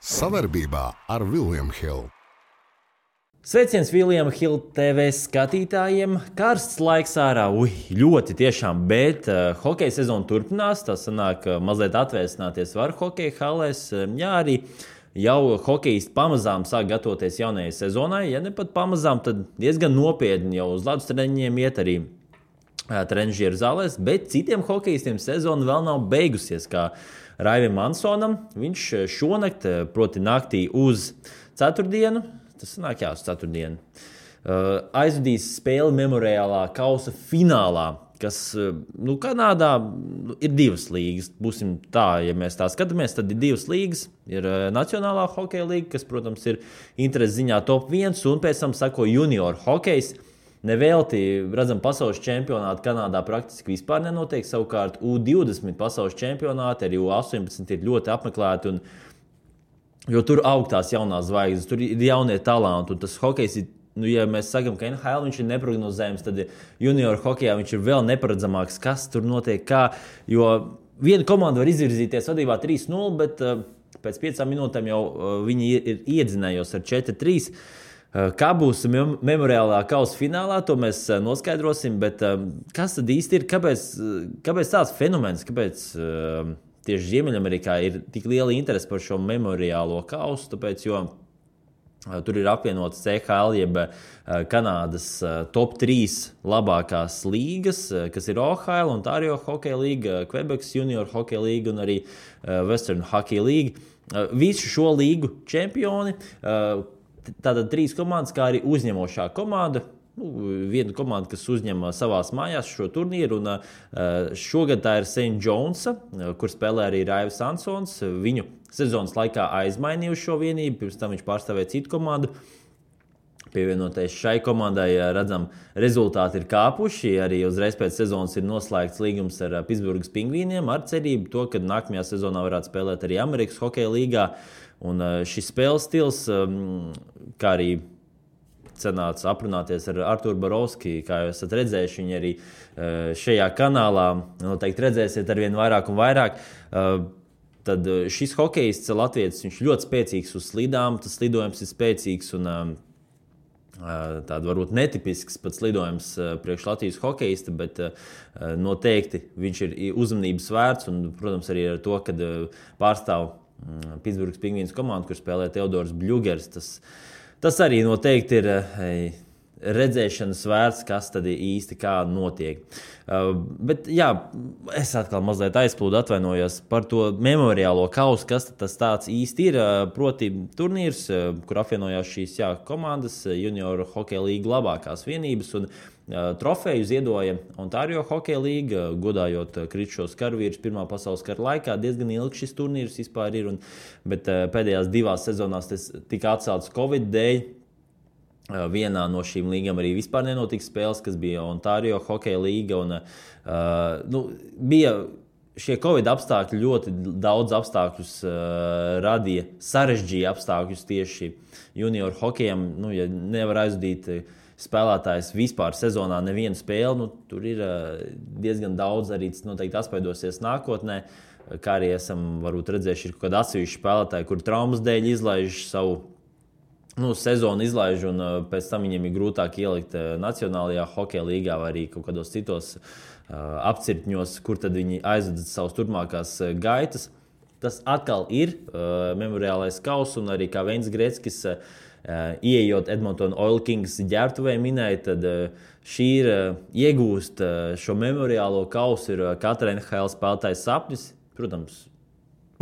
Savarbībā ar William Hill. Sveiciens William Hill TV skatītājiem. Karsts laiks ārā, ļoti tiešām, bet hokeja sezona turpinās. Tā sanāk, mazliet atvēsināties var hokeja halēs. Jā, arī jau hokejisti pamazām sāk gatavoties jaunajai sezonai. Ja ne pat pamazām, tad diezgan nopietni jau uz ledus treniņiem iet arī trenižieru zālēs, bet citiem hokejistiem sezona vēl nav beigusies, kā Raivim Ansonam. Viņš šonakt, proti naktī uz ceturtdienu, tas sanāk uz ceturtdienu, aizvadīs spēli memoriālā kausa finālā, kas, Kanādā ir divas līgas. Būsim tā, ja mēs tā skatāmies, tad ir divas līgas. Ir Nacionālā hokeja līga, kas, protams, ir intereses ziņā top 1, un pēc tam sako junior hokejs. Nevelti, redzam, pasaules čempionāti Kanādā praktiski vispār nenotiek. Savukārt U20 pasaules čempionāti, arī U18 ir ļoti apmeklēti, jo tur aug tās jaunās zvaigznes, tur ir jaunie talanti, un tas hokejs ir, ja mēs sakam, ka NHL viņš ir neprognozējams, tad junior hokejā viņš ir vēl neparedzamāks, kas tur notiek, kā, jo viena komanda var izvirzīties vadībā 3-0, bet pēc 5 minūtēm jau viņi ir iedzinējos ar 4-3. Kā būs memoriālā kausa finālā, to mēs noskaidrosim, bet kas tad īsti ir, kāpēc tāds fenomens, kāpēc tieši Ziemeļamerikā ir tik liela interese par šo memoriālo kausu, tāpēc, jo tur ir apvienotas CHL, jeb Kanādas top 3 labākās līgas, kas ir OHL, Ontario Hockey League, Quebecs Junior Hockey League un arī Western Hockey League. Visu šo līgu čempioni, tātad 3 komandas, kā arī uzņemošā komanda. Viena komanda, kas uzņem savās mājās šo turnīru, un šogad tā ir St. Johnsa, kur spēlē arī Raivis Ansons. Viņu sezonas laikā aizmainījuši šo vienību, pirms tam viņš pārstāvēja citu komandu. Pievienoties šai komandai, redzam, rezultāti ir kāpuši. Arī uzreiz pēc sezonas ir noslēgts līgums ar Pittsburghas Pingvīniem ar cerību to, ka nākamajā sezonā varētu spēlēt arī Amerikas hokeja līgā. Un šis spēles stils, kā arī cenāts aprunāties ar Arturu Borovski, kā jūs esat redzējuši, viņi arī šajā kanālā noteikti redzēsiet arvien vairāk un vairāk. Tad šis hokejists latvietis, viņš ļoti spēcīgs uz slidām, tas lidojums ir spēcīgs un tāda varbūt netipisks pats lidojums priekš Latvijas hokejista, bet noteikti viņš ir uzmanības vērts un, protams, arī ar to, kad pārstāv Pittsburghas Pingvīns komandu, kur spēlē Teodors Bļugers. Tas arī noteikti ir redzēšanas vērts, kas tad īsti kā notiek. Bet jā, es atkal mazliet aizplūdu, atvainojos par to memoriālo kausu, kas tas tāds īsti ir. Proti turnīrs, kur apvienojās šīs komandas, junior hokeja līga labākās vienības, un trofeju ziedoja Ontario Hockey League, godājot kritušos karavīrus Pirmā pasaules kara laikā. Diezgan ilgi šis turnīrs vispār ir, bet pēdējās 2 sezonās tas tika atcelts Covid dēļ. Vienā no šīm līgām arī vispār nenotika spēles, kas bija Ontario Hockey League, un bija šie Covid apstākļi, ļoti daudz apstākļus radīja, sarežģīja apstākļus tieši junior hokejam. Ja nevar aizvadīt spēlētājs vispār sezonā nevienu spēli, tur ir diezgan daudz, arī tas noteikti atspēdosies nākotnē, kā arī esam varbūt redzējuši, ir kaut kādi atsevišķi spēlētāji, kur traumas dēļ izlaiž savu sezonu izlaiž, un pēc tam viņiem ir grūtāk ielikt Nacionālajā hokeja līgā vai arī kaut kādos citos apcirkņos, kur tad viņi aizvada savas turpmākās gaitas. Tas atkal ir memoriālais kauss, un arī kā Veins Greckis ieejot Edmonton Oil Kings ģērbtuvē minēja, tad šī ir iegūst šo memoriālo kausu ir katra NHL spēlētājs sapnis. Protams,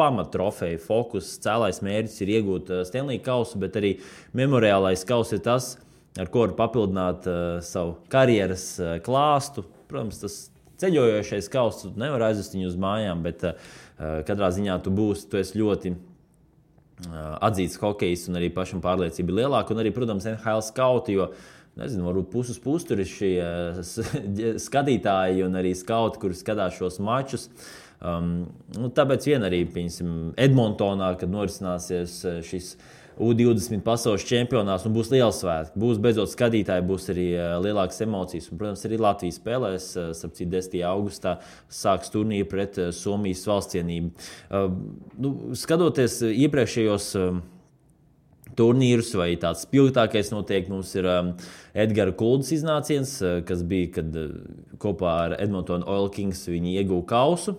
pamattrofeja, fokus, cēlais mērķis ir iegūt Stanley kausu, bet arī memoriālais kauss ir tas, ar ko var papildināt savu karjeras klāstu. Protams, tas ceļojošais kauss, tu nevar aizvest viņu uz mājām, bet katrā ziņā tu esi ļoti atzīts hokejs, un arī pašam pārliecība ir lielāka. Un arī, protams, NHL skauti, jo, varbūt puses tur ir šie skatītāji un arī skauti, kuri skatās šos mačus. Tāpēc vien arī, Edmontonā, kad norisināsies šis U20 pasaules čempionāts, un būs liels svētki. Būs beidzot skatītāji, būs arī lielākas emocijas. Un, protams, arī Latvija spēlēs, 10. augustā sāks turnīru pret Somijas valstsienību. Skatoties iepriekšējos turnīrus, vai tāds spilgtākais noteikti mums ir Edgara Kuldas iznāciens, kas bija, kad kopā ar Edmonton Oil Kings viņi ieguva kausu.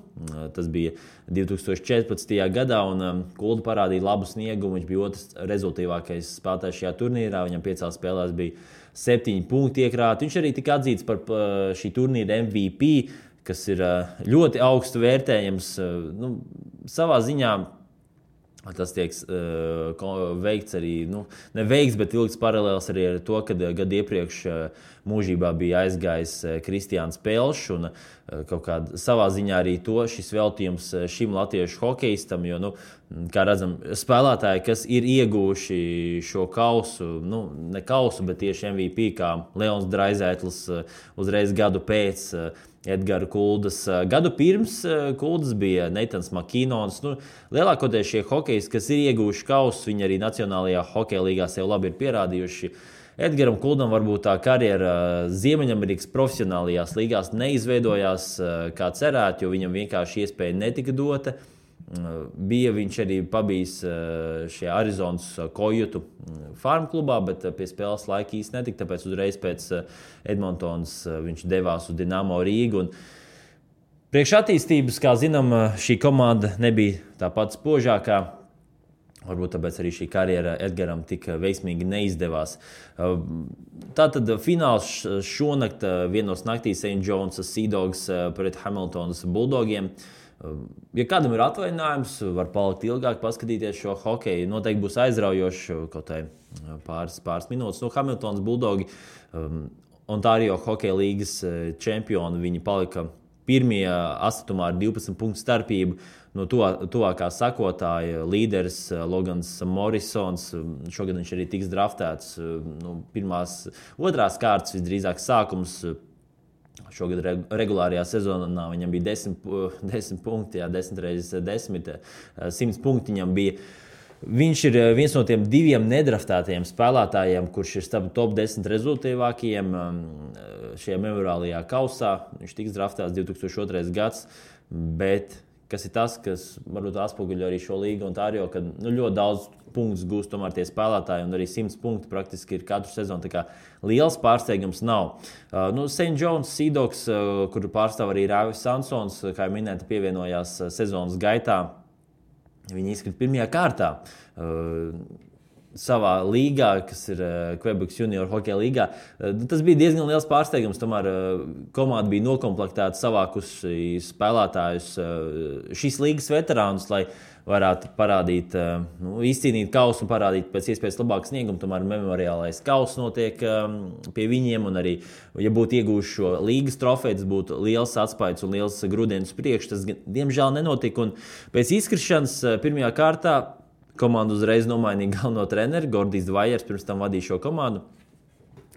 Tas bija 2014. gadā, un Kulda parādīja labu sniegumu. Viņš bija otrs rezultīvākais spēlētājs šajā turnīrā. Viņam 5 spēlēs bija 7 punkti iekrāti. Viņš arī tika atzīts par šī turnīra MVP, kas ir ļoti augstu vērtējams. Savā ziņā tas tiek veikts arī, neveikts, bet vilkts paralēls arī ar to, kad gadu iepriekš mūžībā bija aizgājis Kristiāns Pelšs, un kaut kādā savā ziņā arī šis veltījums šim latviešu hokejistam, jo, kā redzam, spēlētāji, kas ir ieguvuši šo kausu, ne kausu, bet tieši MVP, kā Leons Draizētls uzreiz gadu pēc Edgara Kuldas. Gadu pirms Kuldas bija Neitans Makinons. Lielākoties šie hokejisti, kas ir ieguvuši kausus, viņi arī Nacionālajā hokeja līgā sev labi ir pierādījuši. Edgaram Kuldam varbūt tā karjera Ziemeļamerikas profesionālajās līgās neizveidojās kā cerēt, jo viņam vienkārši iespēja netika dota. Bija viņš arī pabijis šajā Arizonas Kojutu farm klubā, bet pie spēles laika īsti netika, tāpēc uzreiz pēc Edmontonas viņš devās uz Dinamo Rīgu. Priekš attīstības, kā zinām, šī komanda nebija tā pati spožākā. Varbūt tāpēc arī šī karjera Edgaram tik veiksmīgi neizdevās. Tātad fināls šonakt vienos naktī St. John's Sea Dogs pret Hamiltonas Bulldogiem. Ja kādam ir atvainājums, var palikt ilgāk, paskatīties šo hokeju. Noteikti būs aizraujoši kaut pāris minūtes. Hamiltonas Bulldogi, Ontario hokeja līgas čempioni, viņi palika pirmie astotumā ar 12 punktu starpību. No tuvākā sakotāja līderis Logans Morrisons. Šogad viņš arī tiks draftēts. Otrās kārtas visdrīzāk sākums. Šogad regulārajā sezonā viņam bija 10 punkti, 10 reizes 10, 100 punkti viņam bija. Viņš ir viens no tiem 2 nedraftētajiem spēlētājiem, kurš ir starp top 10 rezultīvākajiem šajā memoriālajā kausā. Viņš tiks draftēts 2002. gads, bet kas ir tas, kas varbūt atspoguļo arī šo līgu Ontario, kad ļoti daudz punktus gūst tomēr tie spēlētāji, un arī 100 punkti praktiski ir katru sezonu. Tā kā liels pārsteigums nav. St. John's Sea Dogs, kur pārstāv arī Rāvis Sansons, kā jau minēta, pievienojās sezonas gaitā. Viņi izkrita pirmajā kārtā savā līgā, kas ir Quebec Junior hokeja līgā. Tas bija diezgan liels pārsteigums. Tomēr komanda bija nokomplektēta, savākusi spēlētājus, šīs līgas veterānus, lai varētu parādīt, izcīnīt kausu un parādīt pēc iespējas labāku sniegumu. Tomēr memoriālais kauss notiek pie viņiem, un arī, ja būtu iegūši šo līgas trofeju, tas būtu liels atspaids un liels grūdienis priekš. Tas, diemžēl, nenotika, un pēc izkrišanas pirmajā kārtā komanda uzreiz nomainīja galveno treneri. Gordijs Dvajers pirms tam vadīja šo komandu.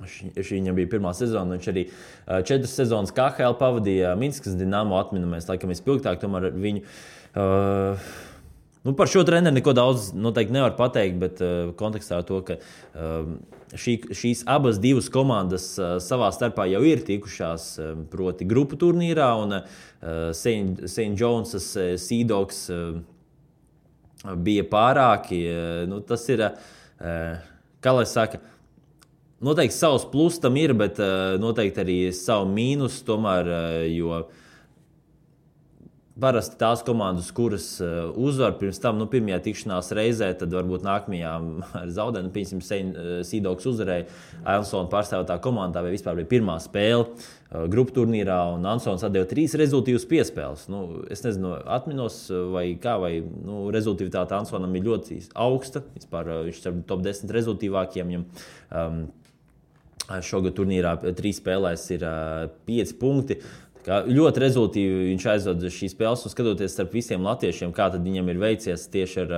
Šī viņam bija pirmā sezona. Viņš arī 4 sezonas KHL pavadīja Minskas Dinamo atminamies, laikam vispilgtāk. Tomēr viņu par šo treneri neko daudz noteikti nevar pateikt, bet kontekstā ar to, ka šīs abas divas komandas savā starpā jau ir tikušās proti grupu turnīrā, un St. John's Sea Dogs bija pārāki. Tas ir, kā lai saka, noteikti savs plus tam ir, bet noteikti arī savu mīnus tomēr, jo parasti tās komandas, kuras uzvar pirms tam, pirmajā tikšanās reizē, tad varbūt nākamajā ar zaudējumu, piemēram, Sea Dogs uzvarēja Ansona pārstāvētā komandā, vai vispār bija pirmā spēle grupu turnīrā, un Ansons atdeva 3 rezultīvas piespēles. Es nezinu, atminos vai kā, vai rezultīvitāte Ansonam ir ļoti augsta. Vispār viņš ir top 10 rezultīvākiem. Šogad turnīrā 3 spēlēs ir 5 punkti. Ļoti rezultīvi viņš aizvada šīs spēles, un skatoties starp visiem latviešiem, kā tad viņam ir veicies tieši ar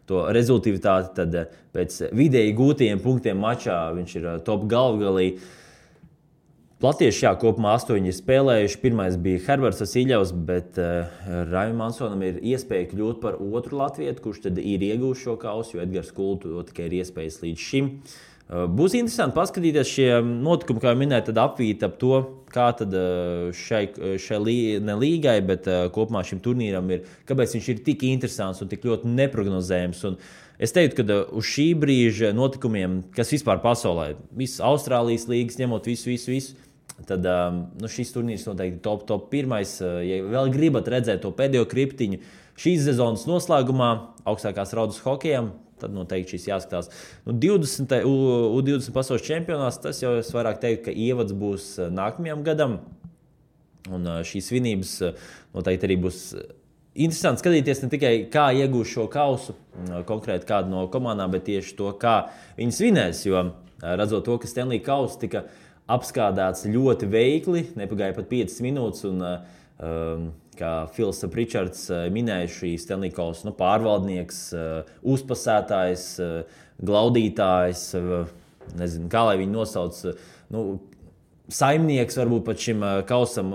to rezultīvitāti, tad pēc vidēji gūtajiem punktiem mačā viņš ir top galvgalī. Latieši, kopumā 8 ir spēlējuši. Pirmais bija Herberts Vasiļevs, bet Raimam Mansonam ir iespēja kļūt par otru latvietu, kurš tad ir iegūst šo kausu, jo Edgars Kultu tikai ir iespējas līdz šim. Būs interesanti paskatīties šie notikumi, kā jau minēju, tad apvīt ap to, kā tad šai ne līgai, bet kopumā šim turnīram ir, kāpēc viņš ir tik interesants un tik ļoti neprognozējams. Un es teiktu, ka uz šī brīža notikumiem, kas vispār pasaulē, visas Austrālijas līgas, ņemot visu, tad šis turnīrs noteikti top pirmais. Ja vēl gribat redzēt to pēdējo kriptiņu šīs sezonas noslēgumā, augstākās raudas hokejam, tad noteikti šis jāskatās. 20 pasaules čempionāts, tas jau es vairāk teiktu, ka ievads būs nākamajam gadam. Un šīs svinības noteikti arī būs interesanti skatīties ne tikai kā iegūs šo kausu, konkrēti kādu no komandām, bet tieši to, kā viņi svinēs. Jo redzot to, ka Stanley kauss tika apskādāts ļoti veikli, nepagāja pat 5 minūtes. Un, kā Fils Pritčards minēja, šī Stanley kausa pārvaldnieks, uzpasētājs, glaudītājs, nezinu, kā lai viņu nosauc, saimnieks varbūt pat šim kausam,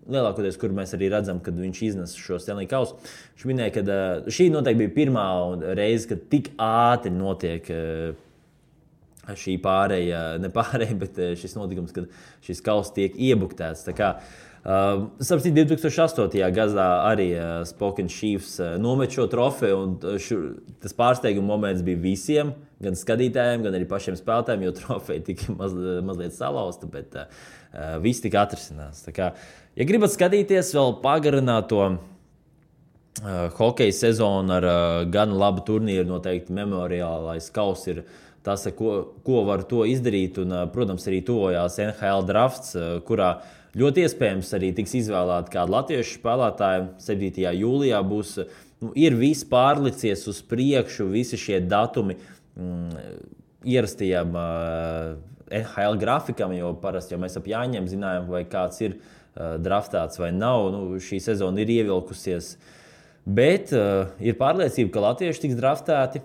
lielākoties, kur mēs arī redzam, kad viņš iznes šo Stanley kausu. Viņš minēja, ka šī noteikti bija pirmā reize, kad tik ātri notiek šī pārēja, bet šis notikums, kad šis kauss tiek iebuktēts. Tā kā Sapratu, 2008. gadā arī Spokane Chiefs nomet šo trofeju, un tas pārsteiguma moments bija visiem, gan skatītājiem, gan arī pašiem spēlētājiem, jo trofeja tika mazliet salauzta, bet viss tika atrisināts. Tā kā, ja gribat skatīties vēl pagarināto hokeja sezonu ar gan labu turnīru, noteikti memoriālais kauss ir tas, ko var to izdarīt, un, protams, arī tuvojās NHL drafts, kurā ļoti iespējams arī tiks izvēlēti kādi latviešu spēlētāji. 7. jūlijā būs, ir viss pārlicies uz priekšu, visi šie datumi ierastajam NHL grafikam, jo parasti jau mēs ap jāņem zinājām, vai kāds ir draftēts vai nav. Šī sezona ir ievilkusies. Bet ir pārliecība, ka latvieši tiks draftēti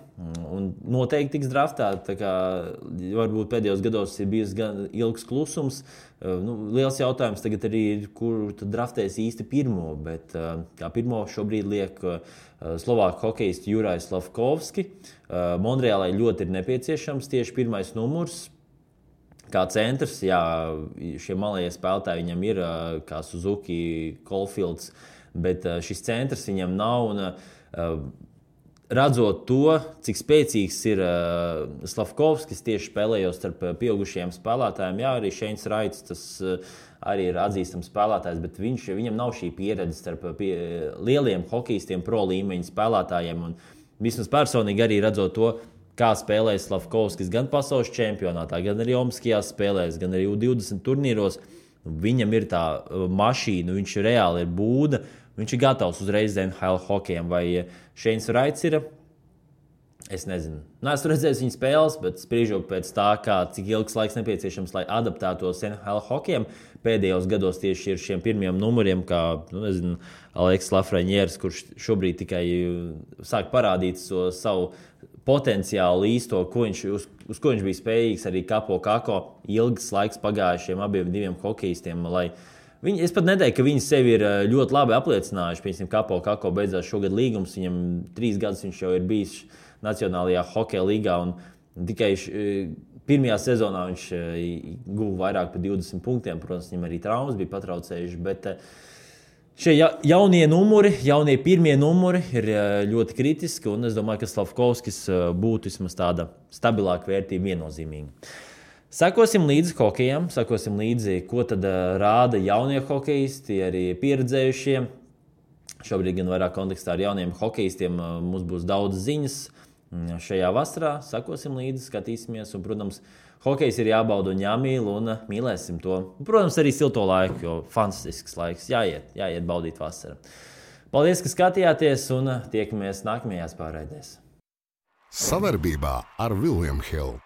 un noteikti tiks draftēti. Tā kā varbūt pēdējos gados ir bijis gan ilgs klusums. Liels jautājums tagad arī ir, kur tad draftēs īsti pirmo. Bet kā pirmo šobrīd liek slovāku hokejistu Jurajs Slavkovski. Monreālai ļoti ir nepieciešams tieši pirmais numurs. Kā centrs, šie malējie spēlētāji viņam ir, kā Suzuki, Caulfields, bet šis centrs viņam nav. Un, redzot to, cik spēcīgs ir Slavkovskis tieši spēlējot starp pieaugušajiem spēlētājiem, arī Šeins Raits, tas arī ir atzīstams spēlētājs, bet viņam nav šī pieredze starp lieliem hokejistiem, pro līmeņa spēlētājiem. Un vismaz personīgi arī redzot to, kā spēlēja Slavkovskis gan pasaules čempionātā, gan arī Olimpiskajās spēlēs, gan arī U20 turnīros. Viņam ir tā mašīna, viņš reāli ir būda, viņš ir gatavs uzreiz NHL hokejam. Vai Šeins Raits ir? Es nezinu. Neesmu redzējis viņa spēles, bet spriežot pēc tā, cik ilgs laiks nepieciešams, lai adaptētos NHL hokejam. Pēdējos gados tieši ir šiem pirmiem numuriem, kā Aleks Lafreniers, kurš šobrīd tikai sāk parādīt savu potenciālu īsto, uz ko viņš bija spējīgs arī Kapo Kako. Ilgs laiks pagājušiem abiem diviem hokejistiem, es pat neteiktu, ka viņi sevi ir ļoti labi apliecinājuši. Piemēram, Kapo Kako beidzās šogad līgums, viņam 3 gadus viņš jau ir bijis Nacionālajā hokeja līgā, un tikai pirmajā sezonā viņš guva vairāk par 20 punktiem. Protams, viņam arī traumas bija patraucējuši, bet šie jaunie pirmie numuri ir ļoti kritiski, un es domāju, ka Slavkovskis būtu vismaz tāda stabilāka vērtība viennozīmīgi. Sekosim līdzi hokejam, sekosim līdzi, ko tad rāda jaunie hokejisti, arī pieredzējušie. Šobrīd gan vairāk kontekstā ar jauniem hokejistiem mums būs daudz ziņas šajā vasarā. Sekosim līdzi, skatīsimies, un, protams, hokejs ir jābauda un jāmīl, un mīlēsim to. Protams, arī silto laiku, jo fantastisks laiks. Jāiet baudīt vasaru. Paldies, ka skatījāties, un tiekamies nākamajās pārraidēs. Savarbībā ar William Hill.